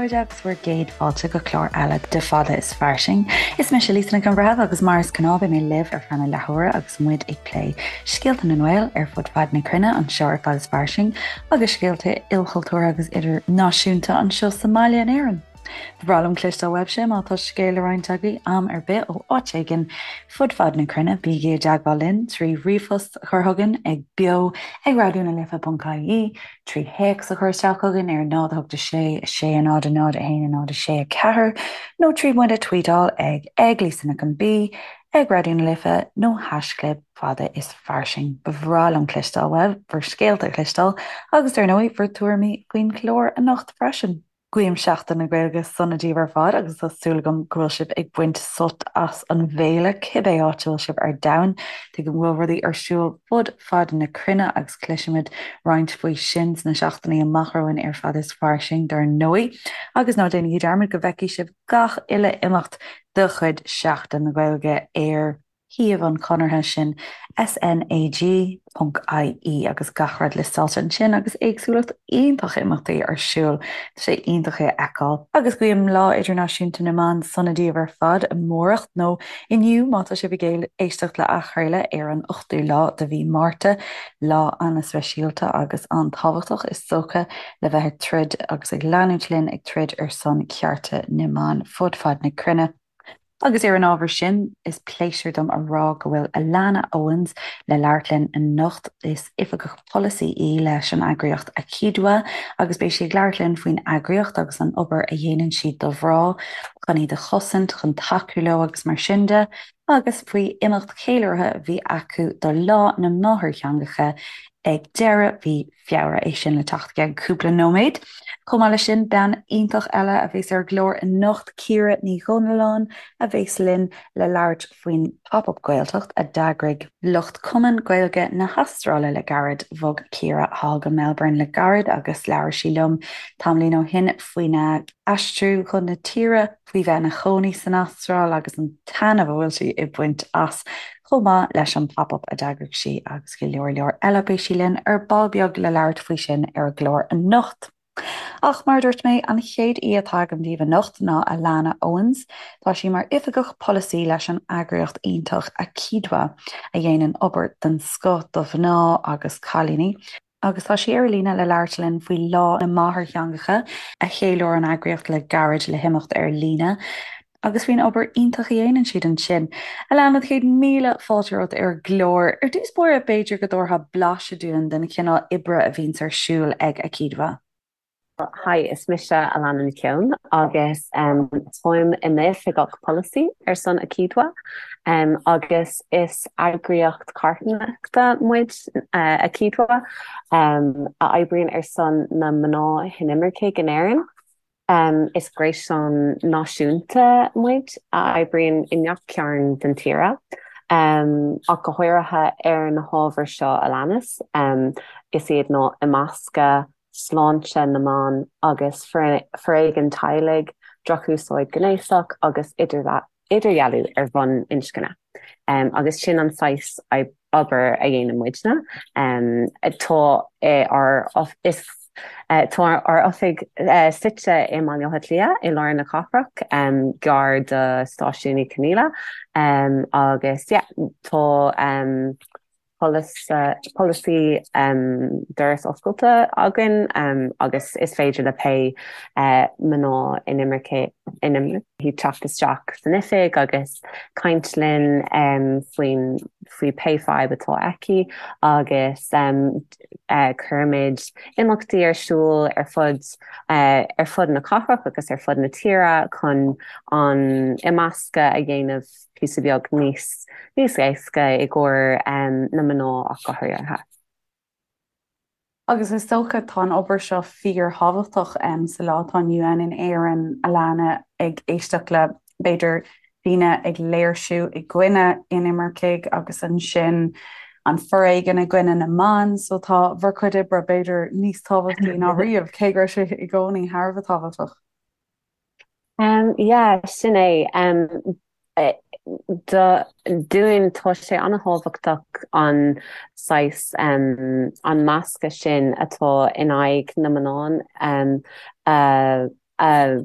chairde agus bhur gcéad fáilte go clár eile de Fada is Fairsing. Is mise Lisa Nic an Bhreithimh agus mar is gnáth beidh mé libh ar feadh na leathuaire agus muid ag plé scéalta na nGael ar fud fad na cruinne anseo ar Fada is Fairsing agus scéalta ilchultúrtha agus idirnáisiúnta anseo sa mbaile in Éirinn. Ba bhreá liom cloisteáil uaibhse má tá scéal le roinnt agaibh am ar bith ó áit éigin fud fad na cruinne. Bígí i dteagmháil linn trí ríomhphost a chur chugainn ag beo ag raidionalife.ie, trí théacs a chur isteach chugainn ar 0 8 6 6 0 0 1 0 6 4 nó trí muid a tweetáil ag ag Lisa Nic an B, ag Raidió na Life nó haischlib fada is fairsing. Ba bhreá liom cloisteáil uaibh, bhur scéalta a chloisteáil agus dar ndóigh bhur dtuairimí faoin chlár anocht freisin. Guím Seachtain na Gaeilge sona daoibh ar fad agus tá súil agam go bhfuil sibh ag baint sult as an bhféile, cibé áit a bhfuil sibh ar domhan. Tuigim go bhfuil rudaí ar siúl fud fad na cruinne agus cloisfimid roinnt faoi sin sna seachtainí amach romhainn ar Fada is Fairsing dar ndóigh. Agus ná déanaigí dearmad go bhfeicfidh sibh gach uile imeacht de chuid Sheachtain na Gaeilge ar shuíomh an Chonartha, sin SNAG ponc IE agus gach rud liostáilte ansin agus éagsúlacht iontach imeachtaí ar siúl. Tá sé iontach é a fheiceáil. Agus guím Lá Idirnáisiúnta na mBan sona daoibh ar fad amárach, nó inniu má tá sibh ag éisteacht le athchraoladh ar an 8ú lá de mhí Márta, lá an-speisialta agus an-tábhachtach is dócha le bheith ag troid agus ag leanúint linn ag troid ar son cearta na mban fud fad na cruinne. Agus ar an ábhar sin, is pléisiúr dom a rá go bhfuil Alana Owens le labhairt linn anocht. Is Oifigeach Polasaí í leis an eagraíocht AkiDwA agus beidh sí ag labhairt linn faoin eagraíocht agus an obair a dhéanann siad do mhná, chun iad a chosaint, chun tacú leo agus mar sin de, agus faoi imeacht ceiliúrtha a bhí acu do Lá na Máthairtheangacha ag deireadh mhí Feabhra, é sin le teacht i gceann cúpla nóiméad. Chomh maith leis sin, bean iontach eile a bheas ar an gclár anocht, Ciara Ní Dhomhnalláin, a bheas linn le labhairt faoin Pop Up Gaeltacht a d'eagraigh lucht Cumann Gaeilge na hAstráile le gairid. Bhog Ciara thall go Melbourne le gairid agus labhair sí liom tamaillín ó shin faoina aistriú chun na tíre, faoi bheith ina chónaí san Astráil agus an taitneamh a bhfuil sí ag baint as, chomh maith leis an Pop Up a d'eagraigh sí agus go leor leor eile. Beidh sí linn ar ball beag le labhairt faoi sin ar an gclár anocht. Ach mar a dúirt mé, an chéad aoi atá agam daoibh anocht ná Alana Owens. Tá sí mar Oifigeach Polasaí leis an eagraíocht iontach AkiDwA, a dhéanann obair den scoth do mhná agus cailíní. Agus tá sí ar líne le labhairt linn faoi Lá na Máthairtheangacha a cheiliúir an eagraíocht le gairid le himeacht ar líne agus faoin obair iontach a dhéanann siad ansin. Alana, 100,000 fáilte romhat ar an gclár. Ar dtús báire, b'fhéidir go dtabharfá blaiseadh dúinn den chineál oibre a bhíonns ar siúl ag AkiDwA. Hi, is mise Alana Nic Eoin agus táim i m'Oifigeach Polasaí ar son AkiDwA agus is eagraíocht carthanachta muid, AkiDwA, a oibríonn ar son na mná hinimircigh in Éirinn. Is gréasán náisiúnta muid a oibríonn i ngach cearn den tíre, ach go háirithe ar na hábhair seo a leanas, is iad ná imeascadh, sláinte na mban agus foréigean teaghlaigh, drochúsáid ghnéasach agus idirdhealú ar bhonn inscne. Agus sin an saghas obair a dhéanann muidne. Tá ár tá ár oifig suite i mBaile Átha Cliath i lár na cathrach, gar do Stáisiún Uí Chonghaile agus yeah tá polasaí doras oscailte againn agus is féidir le pé mná inimirce teacht isteach san oifig agus caint linn faoin faoi pé fadhb atá aici agus cuirimid imeachtaí ar siúl ar fud ar fud na cathrach agus ar fud na tíre chun an imeascadh a dhéanamh píosa beag níos níos éasca i gcomhair na mná ach go háirithe. Agus is dócha tá an obair seo fíorthábhachtach sa lá atá inniu ann in Éirinn, Alana, ag éisteacht le b'fhéidir daoine ag léirsiú i gcoinne inimircigh agus ansin an foréigean i gcoinne na mban, so tá bhur cuid oibre b'fhéidir níos tábhachtaí ná riamh, cé go raibh sé i gcónaí thar a bheith tábhachtach. Yeah, sin é. Dúinn, tá sé an-tábhachtach an saghas, an meascadh sin atá in aghaidh na mná a. a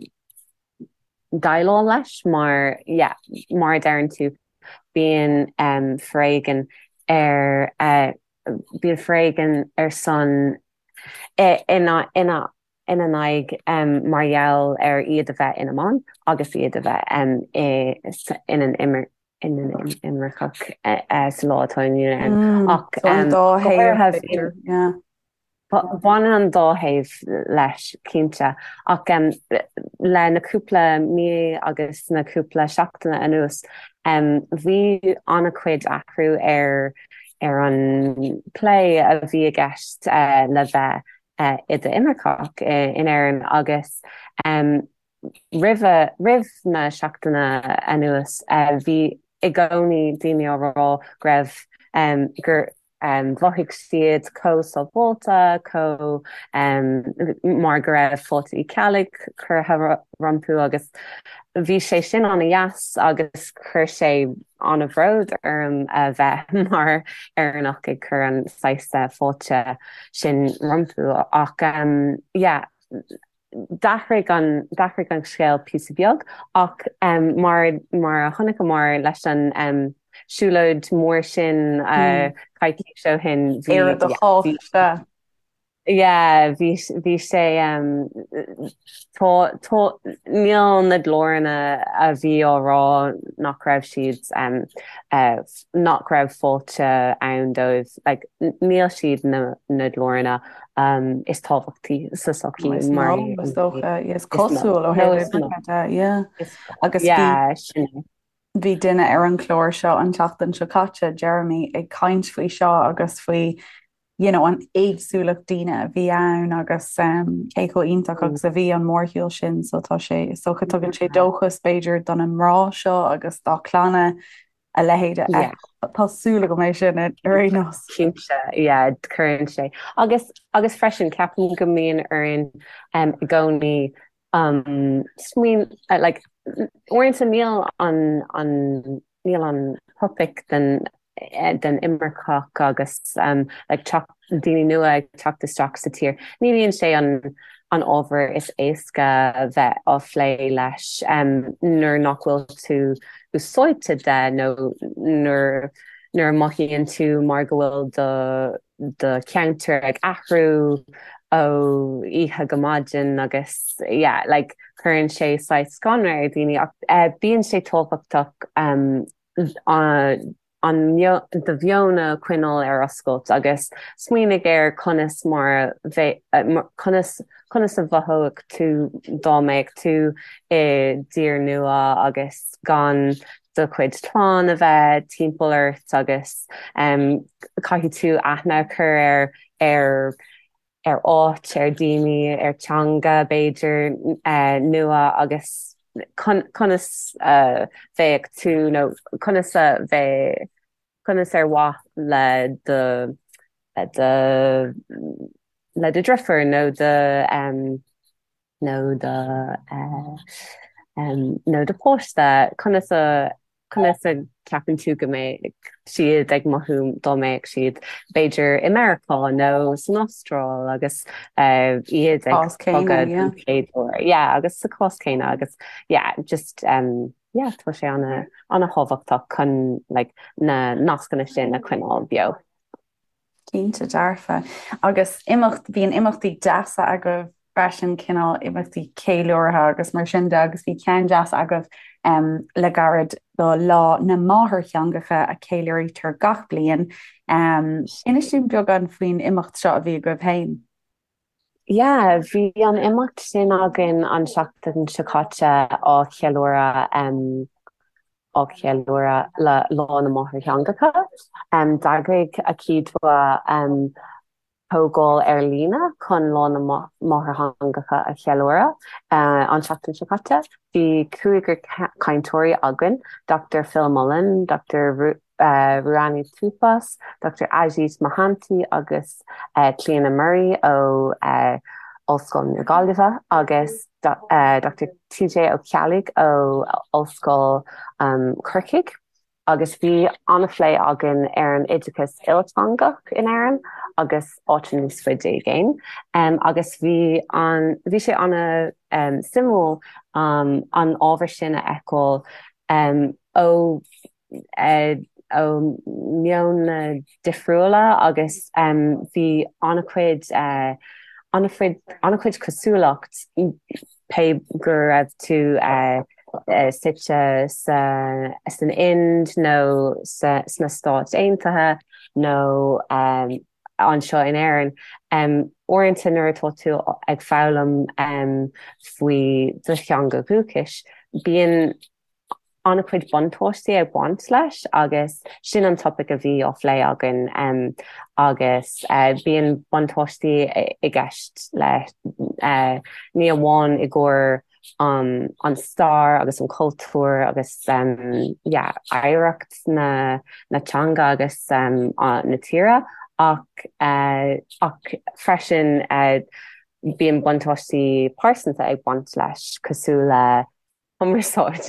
déileáil leis mar yeah mar a deireann tú bíonn foréigean ar bíonn foréigean ar son ina ina ina n-aghaidh mar gheall ar iad a bheith ina mban agus iad a bheith ina n-imirceach sa lá atá inniu ann. Ach an dá thaobh, b'fhéidir, yeah. Baineann an dá thaobh leis, cinnte. Ach le na cúpla mí agus na cúpla seachtaine anuas, bhí an-chuid athrú ar ar an plé a bhí i gceist le bheith i d'imirceach in Éirinn agus roimhe, roimh na seachtaine anuas, bhí i gcónaí daoine á rá go raibh, gur mhothaigh siad chomh sábháilte, chomh, mar go raibh Fáilte Uí Cheallaigh curtha rompu agus bhí sé sin an-dheas agus chuir sé an-bhród orm a bheith mar Éireannach ag cur an saghas fáilte sin rompu ach yeah d'athraigh an d'athraigh an scéal píosa beag ach mar mar a chonaiceamar leis an siúlóid mór sin coicís ó shin bhí Éire do chách sea. Yeah bhí bhí sé tá tá níl na glóranna a bhí á rá nach raibh siad nach raibh fáilte ann dóibh like níl siad na na glóranna is tábhachtaí sa tsochaí mar is dócha is cosúil ó thaobh imirce de yeah agus bhí bhí duine ar an chlár seo an tseachtain seo caite Jeremy ag caint faoi seo agus faoi you know an éagsúlacht daoine a bhí ann agus um, cé chomh iontach agus a bhí an mórshiúl sin so tá sé is dócha tugann sé dóchas b'fhéidir do na mná seo agus dá clanna a leithéid a fheiceáil. Tá súil agam é sin ar aon nós. Cinnte, yeah, cuireann sé. Agus, agus freisin, ceapaim go mbíonn orainn um, i gcónaí um, smaoin, uh, like, uaireanta níl an, an, níl an topaic den, eh, den imirceach agus um, like, teacht, daoine nua ag teacht isteach sa tír. Ní bhíonn sé an, an ábhar is éasca bheith á phlé leis um, nuair nach bhfuil tú úsáidte de nó nuair nuair a mothaíonn tú mar go bhfuil do do cheantar ag athrú ó oíche go maidin agus yeah like cuireann sé saghas scanradh ar dhaoine ach eh, bíonn sé tábhachtach um, an an do mheon a choinneáil ar oscailt agus smaoinigh ar conas mar a conas conas a mhothódh tú dá mbeadh tú i dtír nua agus gan do chuid clann a bheith timpeall ort agus caithfidh tú aithne a chur ar ar ar áit, ar daoine, ar teanga b'fhéidir nua agus conas a bheadh tú nó conas a bheadh, conas ar mhaith le do, le do, le do dhriofúr nó do. nó do nó do pháiste, conas a conas a ceapann tú go mbeadh siad ag mothú dá mbeadh siad b'fhéidir i Meiriceá nó san Astráil agus iad ag bogadh don chéad uair. Yeah, agus sa chás céanna agus yeah, just um, yeah, tá sé ana ana thábhachtach chun like, na nascanna sin a choinneáil beo. Cinnte dearfa. Agus imeacht, bíonn imeachtaí deasa agaibh freisin, cineál imeachtaí ceiliúrtha agus mar sin de agus bhí ceann deas agaibh le gairid do Lá na Máthairtheangacha a ceiliúraítear gach bliain. Inis dúinn beagán faoin imeacht seo a bhí agaibh féin. Yeah, bhí an imeacht sin againn an seachtain seo caite á cheiliúradh á cheiliúradh le Lá na Máthairtheangacha. D'eagraigh AkiDwA comhdháil ar líne chun Lá na Máthairtheangacha a cheiliúradh an seachtain seo caite. Bhí cúigear cainteoirí againn, Dr Phil Mullen, Dr Ruanni Tupas, Dr Ajit Mohanty agus Clíona Murray ó Ollscoil na Gaillimhe agus Dr TJ Ó Ceallaigh ó Ollscoil Chorcaigh agus bhí an-phlé againn ar an oideachas ilteangach in Éirinn. agus áiteanna níos faide i gcéin. Agus bhí an, bhí sé ana suimiúil an ábhar sin a fheiceáil ó ó meonna difriúla agus bhí an-chuid an-chuid an-chuid cosúlacht pé go raibh tú suite san Ind nó sna Stáit Aontaithe nó anseo in Éirinn. Uaireanta nuair atá tú ag foghlaim faoi do theanga dhúchais, bíonn an-chuid buntáistí ag baint leis agus sin an topaic a bhí á phlé againn agus bíonn buntáistí i gceist leis ní amháin i gcomhair an stair agus an cultúr agus yeah oidhreacht na na teanga agus na tíre ach ach freisin bíonn buntáistí pearsanta ag baint leis cosúil le cumarsáid,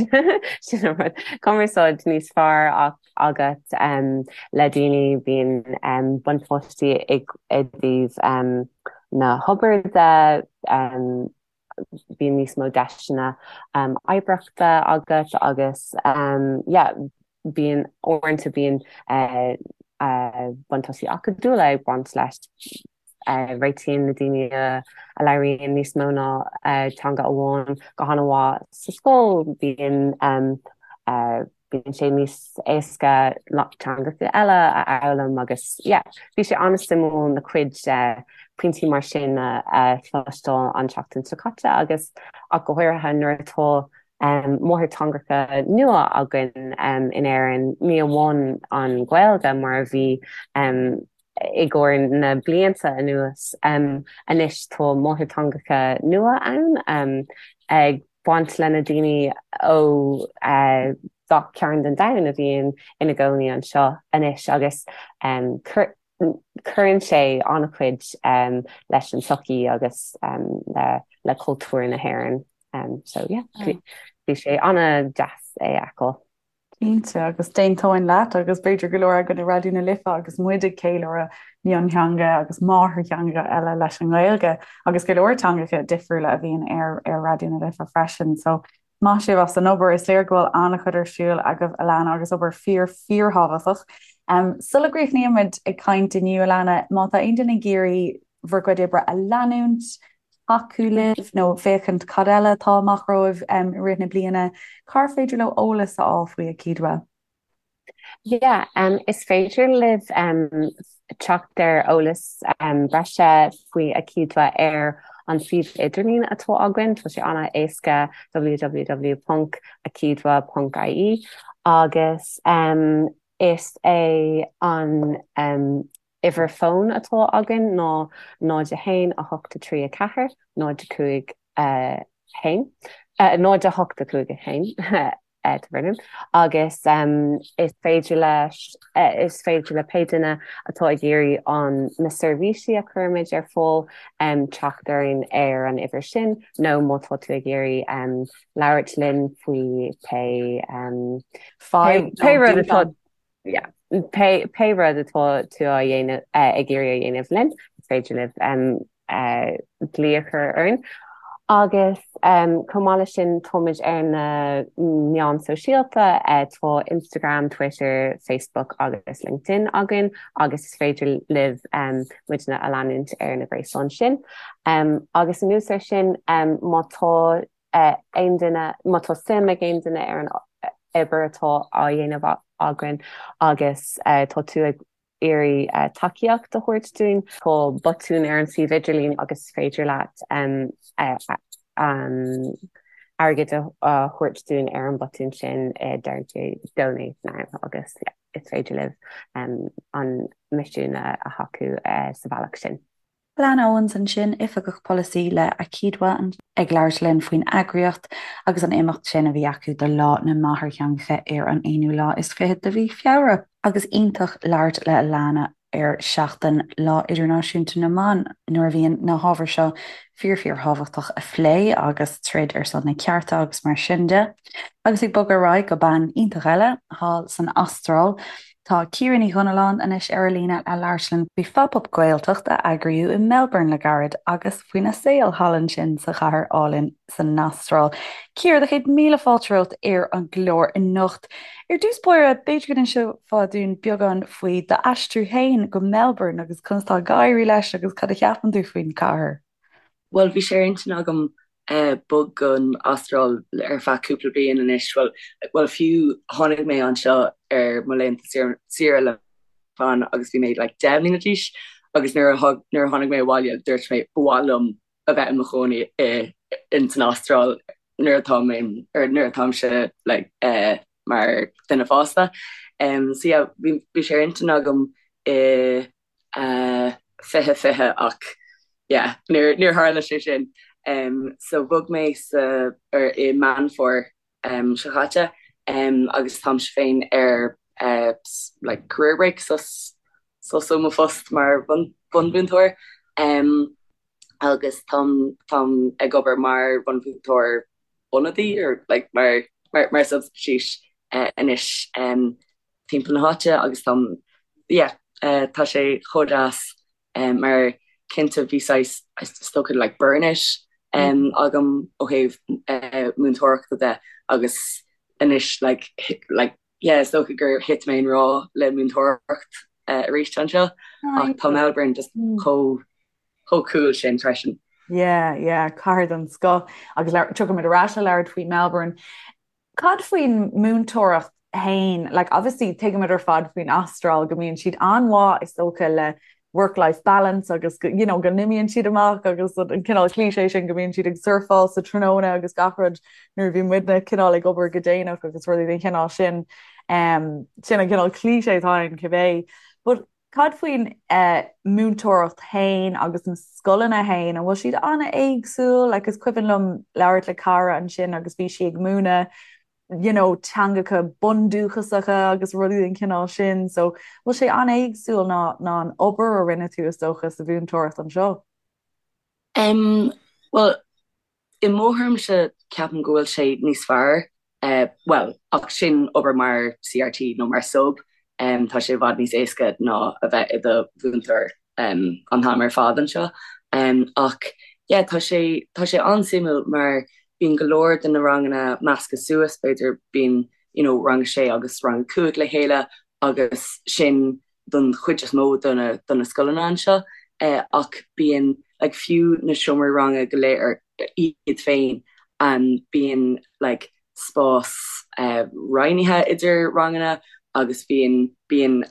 sin an rud, cumarsáid níos fearr agat le daoine, bíonn buntáistí i dtaobh na hobair de, bíonn níos mó deiseanna oibreachta agat agus yeah bíonn, uaireanta bíonn buntáistí acadúla ag baint leis. Réitíonn na daoine a labhraíonn níos mó ná teanga amháin go han-mhaith sa scoil, bíonn bíonn sé níos éasca teangacha eile a fhoghlaim agus yeah, bhí sé an-suimiúil na cuid pointí mar sin a chloisteáil an tseachtain seo caite agus ach go háirithe nuair atá máthairtheangacha nua againn in Éirinn, ní amháin an Ghaeilge mar a bhí i gcomhair na blianta anuas. Anois tá máthairtheangacha nua ann ag baint le na daoine ó gach cearn den domhan a bhíonn ina gcónaí anseo anois agus cuireann sé an-chuid leis an tsochaí agus le cultúr na hÉireann. So yeah, bhí sé an-deas é a fheiceáil. Cinnte, agus d'aontóinn leat, agus b'fhéidir go leor againn i Raidió na Life agus muid ag ceiliúradh miontheanga agus máthairtheanga eile leis an nGaeilge, agus go leor teangacha difriúla a bhíonn ar ar Raidió na Life freisin. So, maith sibh as an obair, is léir go bhfuil an-chuid ar siúl agaibh, Alana, agus obair fíor fíorthábhachtach. Um, sula gcríochnaímid ag caint inniu, Alana, má tá aon duine ag iarraidh bhur gcuid oibre a leanúint, tacú libh nó féachaint cad eile atá amach romhaibh i rith na bliana, cár féidir leo eolas a fháil faoi AkiDwA? Yeah, um, is féidir libh um, teacht ar eolas um, breise faoi AkiDwA ar an suíomh idirlín atá againn, tá sé an-éasca www.akidwa.ie agus um, is é an um, Uimhir fóin atá againn ná 0 1 8 3 4 0 5 1, 0 8 5 1, agus is féidir leis, is féidir le pé duine atá ag iarraidh an na seirbhísí a chuirimid ar fáil teacht orainn ar an uimhir sin nó má tá tú ag iarraidh labhairt linn faoi pé pé rud atá Yeah. Pé, pé rud atá tú á dhéanamh, ag iarraidh a dhéanamh linn, is féidir libh glaoch a chur orainn. Agus chomh maith leis sin, táimid ar na meáin sóisialta, tá Instagram, Twitter, Facebook agus LinkedIn againn agus is féidir libh muidne a leanúint ar na gréasáin sin. Agus anuas air sin, má tá aon duine, má tá suim ag aon duine ar an obair atá á dhéanamh againn agus tá tú ag iarraidh tacaíocht a thabhairt dúinn, tá botún ar an suíomh idirlín agus is féidir leat airgead a thabhairt dúinn ar an botún sin, deireann sé 'Donate Now' agus is féidir libh an misiún a thacú sa bhealach sin. Alana Owens ansin, Oifigeach Polasaí le AkiDwA, ag labhairt linn faoin eagraíocht agus an imeacht sin a bhí acu do Lá na Máthairtheangacha ar an aonú lá is fichead de mhí Feabhra. Agus iontach labhairt le Alana ar seachtain Lá Idirnáisiúnta na mBan nuair a bhíonn na hábhair seo fíor fíor thábhachtach a phlé agus troid ar son na cearta agus mar sin de. Agus ag bogadh ar aghaidh go bean iontach eile thall san Astráil. Tá Ciara Ní Dhonnalláin anois ar an líne le labhairt linn faoi Phop-Up Gaeltacht a eagraíodh i Melbourne le gairid agus faoina saol thall ansin sa chathair álainn san Astráil. Ciara, do chéad míle fáilte romhat ar an gclár anocht. Ar dtús báire, b'fhéidir go n-inseofá dúinn beagán faoi d'aistriú féin go Melbourne agus conas tá ag éirí leis agus cad a cheapann tú faoin chathair? Bhuel, bhí sé ar intinn agam bog gon Astráil ar feadh cúpla bliain anois. Bhuel, bhuel fiú tháinig mé anseo ar mo laethanta saoire le clann agus bhí mé like 10 mbliana d'aois agus nuair a nuair a tháinig mé abhaile dúirt mé ba mhaith liom a bheith i mo chónaí i in san Astráil nuair atá mé or nuair atáimse like eh mar duine fásta. Um, so yeah, bhí bhí sé ar intinn agam i 2020 ach yeah níor níor tharla sé sin. Um, so bhog mé sa ar i Meán Fómhair um, seo chaite um, agus táimse féin ar uh, like career break sos sos ó mo phost mar bhun bunmhúinteoir um, agus táim táim ag obair mar bhunmhúinteoir ionadaí or like mar mar mar substitute uh, anois um, timpeall na háite agus táim yeah tá sé chomh deas mar cinnte bhí saghas is dócha like burnout agam ó thaobh múinteoireachta de agus anois like like yeah is dócha gur thit mé i ngrá le múinteoireacht arís anseo ach tá Melbourne just chomh chomh cool sin freisin. Yeah, yeah, cathair den scoth agus tiocfaimid ar ais le labhairt faoi Melbourne. Cad faoin múinteoireacht fhéin? Like obviously tuigimid ar fad faoin Astráil go mbíonn siad an-mhaith is dócha le work-life balance agus go, you know, go n-imíonn siad amach agus an cineál cliché sin go mbíonn siad ag surfáil sa tráthnóna agus gach rud nuair a bhí muidne cineál ag obair go déanach agus rudaí den chineál sin. Um, sin an cineál cliché atá ann cibé. But Cad faoin múinteoireacht fhéin agus na scoileanna fhéin, an bhfuil siad an-éagsúil? Like is cuimhin liom labhairt le cara ansin agus bhí sí ag múineadh you know teangacha bundúchasacha agus rudaí den chineál sin, so bhfuil sé an-éagsúil ná ná an obair a rinne tú is dócha sa mhúinteoireacht anseo? Em, bhuel, I mo thuairimse, ceapaim go bhfuil sé níos fearr, bhuel, ach sin obair mar CRT nó mar sub, tá sé i bhfad níos éasca ná a bheith i do mhúinteoir an t-am ar fad anseo. Ach yeah, tá sé, tá sé an-suimiúil mar bíonn go leor de na ranganna measctha suas, b'fhéidir bíonn, you know, rang a sé agus rang a cúig le chéile agus sin don chuid is mó de na de na scoileanna anseo ach bíonn like fiú na seomraí ranga go léir iad féin bíonn like spás roinnithe idir ranganna agus bíonn bíonn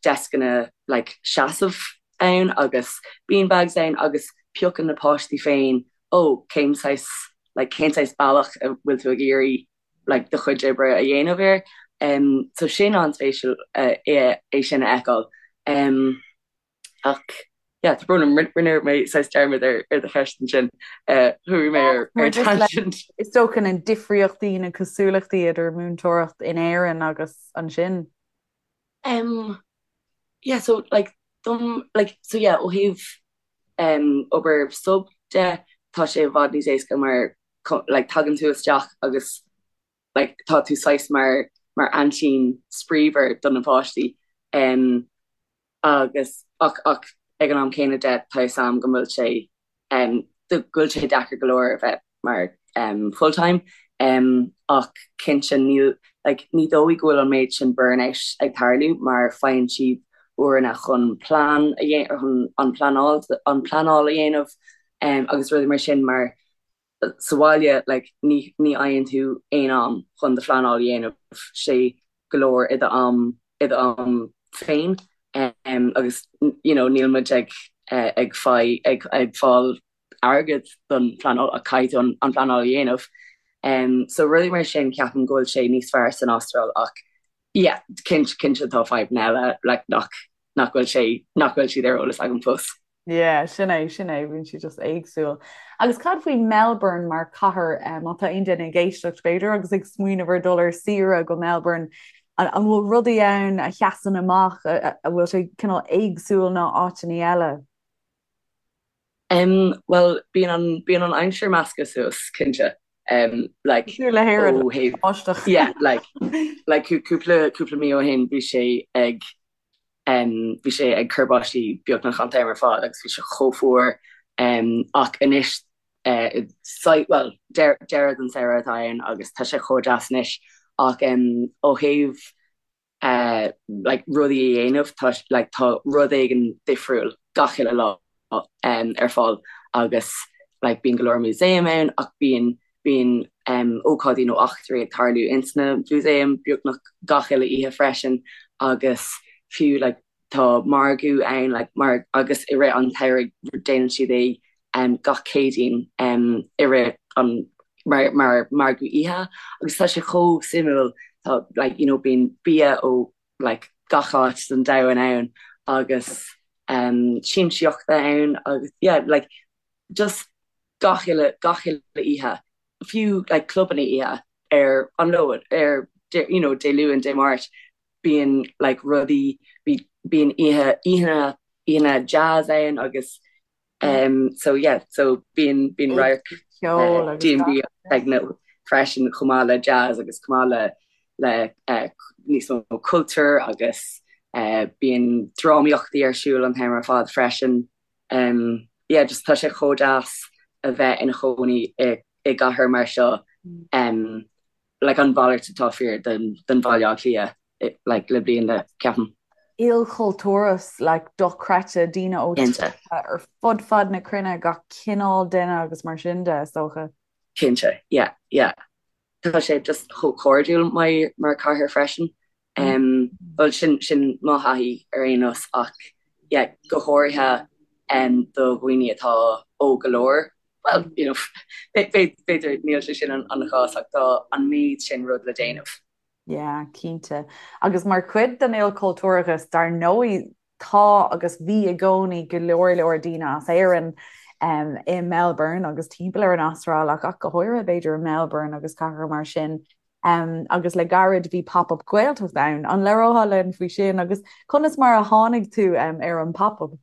deascanna like seasamh ann agus beanbags ann agus piocann na páistí féin ó cén saghas like cén saghas bealach a bhfuil tú ag iarraidh like do chuid oibre a dhéanamh air. Um, so sin an-spéisiúil uh, é, é sin a fheiceáil. Um, ach yeah, tá brón orm, rinne mé saghas dearmad ar, ar do cheist ansin. Uh, chuaigh mé ar, ar tangent. Is dócha na difríochtaí na cosúlachtaí idir múinteoireacht in Éirinn agus ansin. Um, yeah, so like, dom, like, so yeah, ó thaobh um, obair sub de, tá sé i bhfad níos éasca mar like tagann tú isteach agus like tá tú saghas mar mar aintín spraímhar do na páistí um, agus ach ach ag an am céanna de tá fhios a'm go bhfuil sé um, go bhfuil sé deacair go leor a bheith mar um, full time um, ach cinnte níl like, ní dóigh go bhfuil an méid sin burnout ag tarlú mar faigheann siad uaireanta chun plean a dhéanamh chun an pleanáil an pleanáil a dhéanamh um, agus rudaí mar sin mar sa bhaile like ní ní fhaigheann tú aon am chun do phleanáil a dhéanamh, sé go leor i do am i do am féin um, agus you know níl muid ag eh, ag fai ag ag fáil airgead don phleanáil ach caithfidh tú an, an phleanáil a dhéanamh. Um, so rudaí mar sin ceapaim go bhfuil sé níos fearr san Astráil ach yeah, cinnte cinnte tá fadhbanna eile like nach nach bhfuil sé nach bhfuil siad ar eolas agam fós. Yeah, sin é, sin é, bíonn siad just éagsúil. Agus cad faoi Melbourne mar cathair, má tá aon duine ag éisteacht b'fhéidir agus ag smaoineamh ar dul ar saoire go Melbourne, an bhfuil rudaí ann a sheasann amach, a bhfuil sé cineál éagsúil ná áiteanna eile? Um, bhuel, bíonn an, bíonn an aimsir measctha suas, cinnte. Um, like, Cosúil le hÉirinn, ó thaobh báisteach. yeah, like, like cúpla cúpla mí ó shin bhí sé ag um, bhí sé ag cur báistí beagnach an t-am ar fad agus bhí sé chomh fuar um, ach anois uh, sa, well, deireadh den samhradh atá ann agus tá sé chomh deas anois ach um, ó thaobh like rudaí a dhéanamh tá like tá rud éigin difriúil gach uile lá um, ar fáil agus like bíonn go leor músaem ann ach bíonn bíonn um, ócáidí nó eachtraí ag tarlú ins na músaeim beagnach gach uile oíche freisin agus fiú like tá margadh ann like mar agus i rith an tsamhraidh déanann siad é um, gach Céadaoin um, i rith an mar, mar margadh oíche agus tá sé chomh suimiúil tá like, you know, bíonn bia ó like, gach áit den domhan ann agus um, siamsaíochta ann agus yeah, like, just gach uile gach uile oíche fiú like, clubanna oíche ar an Luan ar you know, Dé Luain, Dé Máirt bíonn like rudaí bíonn oíche oícheanna oícheanna jazz ann agus um so yeah so bíonn bíonn radharc Ceol agus D&B gach. techno freisin chomh maith le jazz agus chomh maith le le uh, níos mó cultúr agus uh, bíonn drámaíochtaí ar siúl an t-am ar fad freisin. Um, yeah, just tá sé chomh deas a bheith ina chónaí i, i gcathair mar seo um, like an mhalairt atá fíor den, den Bhaile Átha Cliath like le blianta, ceapaim. Ilchultúrachas like dochreidte, daoine ó Cinnte. tíortha ar fud fad na cruinne, gach cineál duine agus mar sin de, is dócha. Cinnte, yeah, yeah. Tá sé just chomh cairdiúil mar, mar cathair freisin. Um, well sin, sin mo thaithí ar aon nós ach yeah, go háirithe um, do dhaoine atá óg go leor, well, you know, b'fhéidir níl sé sin an chás ach tá an méid sin rud le déanamh. Yeah, cinnte. Agus mar chuid den ilchultúrachas, dar ndóigh, tá agus bhí i gcónaí go leor leor daoine as Éirinn um, i Melbourne agus timpeall ar an Astráil ach ach go háirithe b'fhéidir i Melbourne agus cathracha mar sin. Um, agus le gairid bhí pop-up Gaeltacht ann. An labhrófá linn faoi sin agus conas mar a tháinig tú um, ar an pop-up?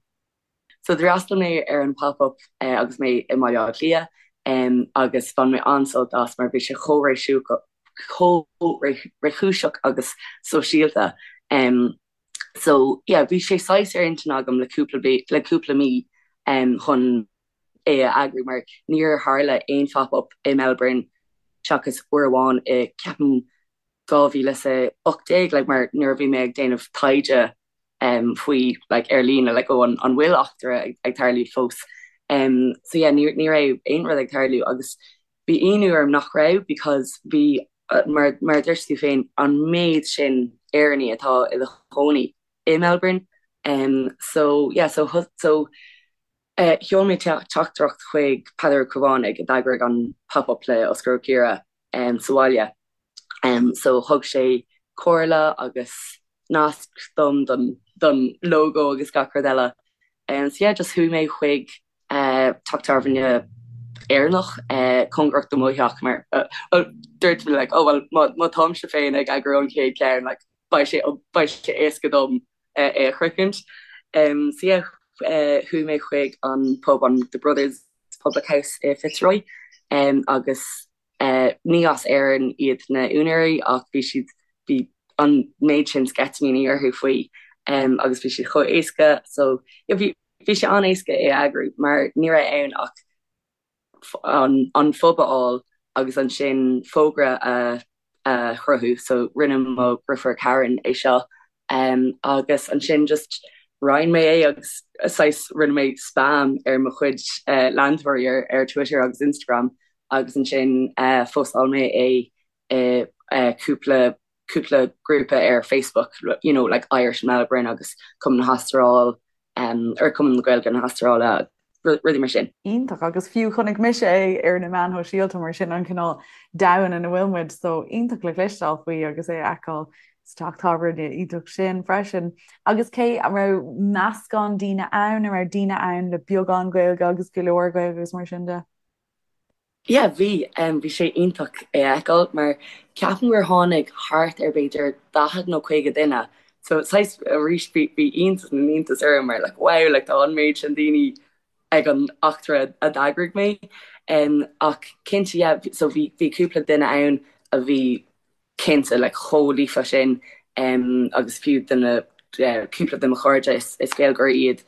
So d'fhreastail mé ar an pop-up agus mé i mBaile Átha Cliath agus bhain mé an-sult as mar bhí sé chomh réchúiseach agus sóisialta. So yeah, bhí sé saghas ar intinn agam le cúpla le cúpla mí chun é a eagrú mar níor tharla aon phop-up i Melbourne seachas uair amháin i ceapaim 2018 like mar nuair a bhí mé ag déanamh taighde um, faoi like, ar líne like, oh, an, an bhfuil eachtra ag, ag tarlú fós. Um, so yeah, ní, ní raibh aon rud ag tarlú agus bhí ionadh orm nach raibh because bhí uh, mar, mar a dúirt tú féin an méid sin Éireannaigh atá ina chónaí i Melbourne. Um, so yeah, so, so uh, sheol mé teachtaireacht chuig Peadar Ó Caomhánaigh a d'eagraigh an pop-up le Oscar Ó Ciardha um, sa bhaile. Um, so thug sé comhairle agus nasc dom don, don logo agus gach rud eile. Um, so yeah, just chuaigh mé chuig uh, teach tábhairne Éireannach uh, cóngarach do mo theach mar uh, well, dúirt mé like, oh, well, má, má táimse féin ag eagrú an chéad ceann like, beidh sé, beidh sé éasca dom uh, é a shroichint. Um, so yeah, uh, chuaigh mé chuig an pub an The Brothers Public House i Fitzroy um, agus Ní as Éirinn iad na úinéirí ach bhí siad, bhí an méid sin sceitimíní orthu faoi agus bhí siad chomh éasca so yeah bhí, bhí sé an-éasca é a eagrú mar ní raibh ann ach an, an phub a fháil agus ansin fógra a, a chruthú so rinne mo dheirfiúr Karen é seo agus ansin just roinn mé é agus saghas rinne mé spam ar mo chuid leantóirí ar Twitter agus Instagram agus ansin phostáil mé é i cúpla cúpla grúpa ar Facebook, you know, like Irish in Melbourne agus Cumann na hAstráile or Cumann na Gaeilge na hAstráile, rudaí mar sin. Iontach, agus fiú chonaic mise é ar na meáin shóisialta mar sin an cineál domhan ina bhfuil muid, so iontach le cloisteáil faoi agus é a fheiceáil sa teach tábhairne iontach sin freisin. Agus cé, an raibh meascán daoine ann, an raibh daoine ann le beagán Gaeilge agus go leor Gaeilge agus mar sin de? Yeah, bhí. Bhí sé iontach é a fheiceáil mar ceapaim gur tháinig thart ar b'fhéidir 40 nó 50 duine. So saghas arís bhí bhí iontas na n-iontas orm mar like wow like tá an méid sin daoine ag an eachtra a d'eagraigh mé. Ach cinnte yeah so bhí bhí cúpla duine ann a bhí cinnte like chomh líofa sin agus fiú de na cúpla de mo chairde is is Gaeilgeoirí iad.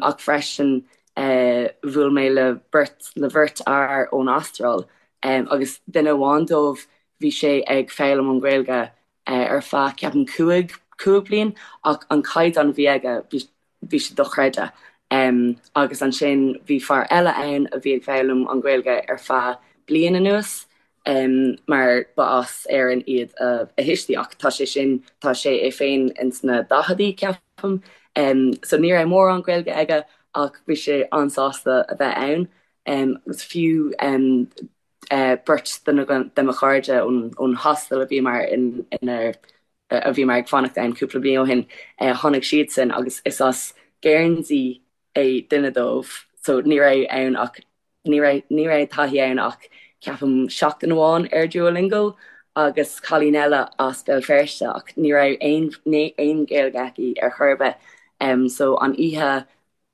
Ach freisin bhuail mé le beirt le bheirt fhear ón Astráil agus duine amháin dóibh bhí sé ag foghlaim an Ghaeilge ar feadh ceapaim 5 5 bliain ach an caighdeán a bhí aige bhí bhí sé dochreidte. Agus ansin bhí fear eile ann a bhí ag foghlaim an Ghaeilge ar feadh bliain anuas mar ba as Éirinn iad a thuistí ach tá sé sin, tá sé é féin ins na daicheadaí ceapaim. So ní raibh mórán Gaeilge aige ach bhí sé an-sásta a bheith ann. Agus fiú beirt de mo chairde ón hostel a bhíomar ina a bhíomar ag fanacht ann cúpla bliain ó shin, tháinig siadsan agus is as Guernsey é duine dóibh so ní raibh ann ach ní raibh ní raibh taithí ann ach ceapaim seachtain amháin ar Duolingo agus cailín eile as Béal Feirste ach ní raibh aon aon Ghaeilge aici ar chor ar bith so an oíche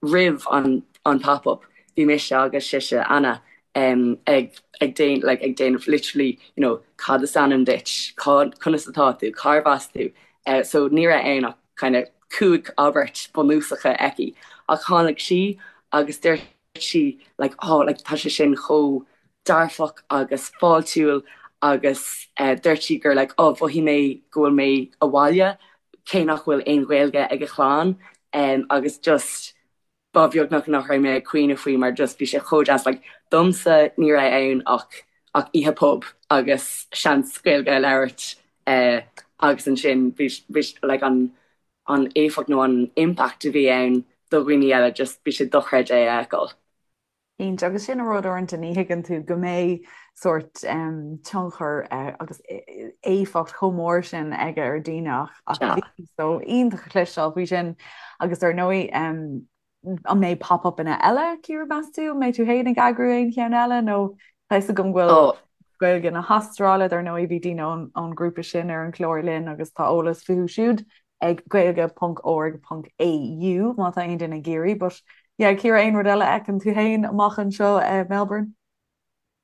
roimh an an pop up bhí mise agus sise, Anna, ag ag déan like ag déanamh literally you know cad is ainm duit, cá conas atá tú, cárbh as tú so ní raibh ann ach kind of 5 abairt bunúsacha aici ach tháinig sí agus dúirt sí like oh like tá sé sin chomh dearfach agus fáiltiúil agus dúirt sí gur like oh mhothaigh mé go bhfuil mé abhaile cé nach bhfuil aon Ghaeilge ag a chlann agus just ba bheag nach nach raibh mé ag caoineadh faoi mar just bhí sé chomh deas like domsa ní raibh ann ach ach oíche pub agus seans Gaeilge a labhairt agus ansin bhí bhí like an an éifeacht nó an impact a bhí ann do dhaoine eile just bhí sé dochreidte é a fheiceáil. Cinnte, agus sin an rud uaireanta ní thuigeann tú go mbeidh sórt tionchar agus éifeacht chomh mór sin aige ar daoine ach ach bhí so iontach a chloisteáil faoi sin agus ar ndóigh an mbeidh pop-upanna eile Ciara meas tú? An mbeidh tú féin ag eagrú aon cheann eile nó tá fhios agam go bhfuil Gaeilge na hAstráile dar ndóigh bhí daoine ón ngrúpa sin ar an chlár linn agus tá eolas fúthu siúd. ag gaeilge ponc org ponc au má tá aon duine ag iarraidh but yeah Ciara aon rud eile a fheiceann tú féin amach anseo i Melbourne?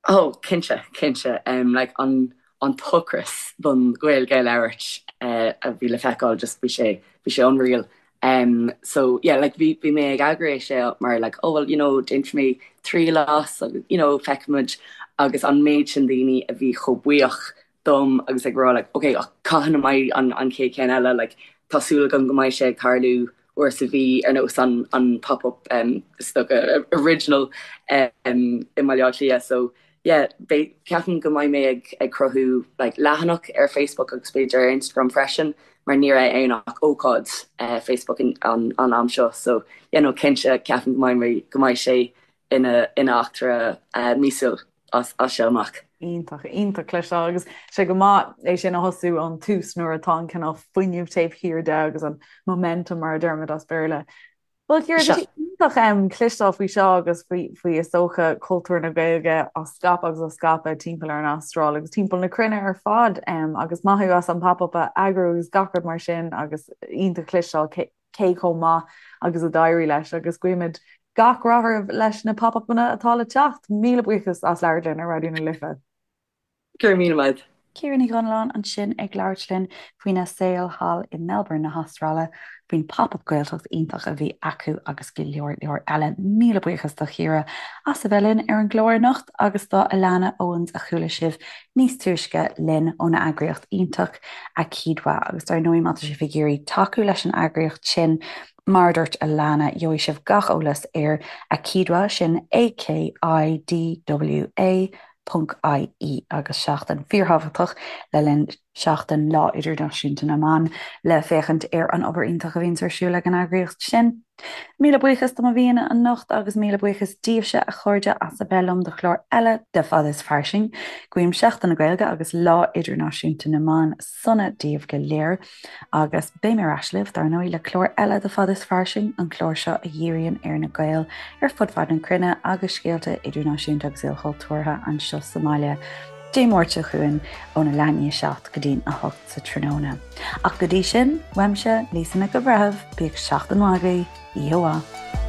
Oh cinnte, cinnte. Um, like an an t-ocras don Ghaeilge a labhairt uh, a bhí le feiceáil just bhí sé bhí sé unreal. Um, so yeah, like bhí bhí mé ag eagrú é seo mar like oh well you know déanfaidh mé triail as agus you know feicfimid agus an méid sin daoine a bhí chomh buíoch dom agus ag rá like ok ach cathain a mbeidh an an chéad cheann eile like tá súil agam go mbeidh sé ag tarlú uair sa mhí ar nós an an pop up um is dócha original um i mBaile Átha Cliath so yeah beidh ceapaim go mbeidh mé ag ag cruthú like leathanach ar Facebook agus b'fhéidir ar Instagram freisin mar ní raibh ann ach ócáid uh, Facebook an an an am seo so yeah no cinnte ceapaim go mbeidh mé go mbeidh sé ina ina eachtra uh, míosúil. as seo amach. Iontach, iontach cloisteáil agus sé go maith é sin a thosú ón tús nuair atá an cineál fuinneamh taobh thiar de agus an momentum mar a deirimid as Béarla. Bhuel Ciara, tá sé iontach um, cloisteáil faoi seo agus faoi, faoi is dócha cultúr na Gaeilge á scaipeadh agus á scaipeadh timpeall ar an Astráil agus timpeall na cruinne ar fad um, agus maith thú as an pop-up a eagrú agus gach rud mar sin agus iontach cloisteáil cé chomh maith agus a d'éirigh leis agus guímid gach rath oraibh leis na pop-upanna atá le teacht. Míle buíochas as labhairt linn ar Raidió na Life. Go raibh míle maith. Ciara Ní Dhonnalláin ansin ag labhairt linn faoina saol thall i Melbourne na hAstráile, faoin Pop-Up Gaeltacht iontach a bhí acu agus go leor leor eile. Míle buíochas do Chiara as a bheith linn ar an gclár anocht agus do Alana Owens a chuala sibh níos túisce linn óna eagraíocht iontach Akidwa agus dar ndóigh má tá sibh ag iarraidh tacú leis an eagraíocht sin, mar a dúirt Alana, gheobhaidh sibh gach eolas ar Akidwa, sin A-K-I-D-W-A ponc I-E agus seachtain fíorthábhachtach le linn seachtain Lá Idirnáisiúnta na mBan le féachaint ar an obair iontach a bhíonns ar siúl ag an eagraíocht sin. Míle buíochas do mo aíonna anocht agus míle buíochas daoibhse, a chairde, as a bheith liom do chlár eile de Fada is Fairsing. Guím Seachtain na Gaeilge agus Lá Idirnáisiúnta na mBan sona daoibh go léir agus beidh mé ar ais libh, dar ndóigh, le clár eile de Fada is Fairsing, an clár seo a dhíríonn ar na Gaeil ar fud fad na cruinne agus scéalta idirnáisiúnta agus ilchultúrtha anseo sa mbaile. Dé Máirt seo chugainn óna leath i ndiaidh 7 go dtí'n 8 sa tráthnóna. Ach go dtí sin, uaimse, Lisa Nic an Bhreithimh, bíodh seachtain mhaith agaibh, oíche mhaith.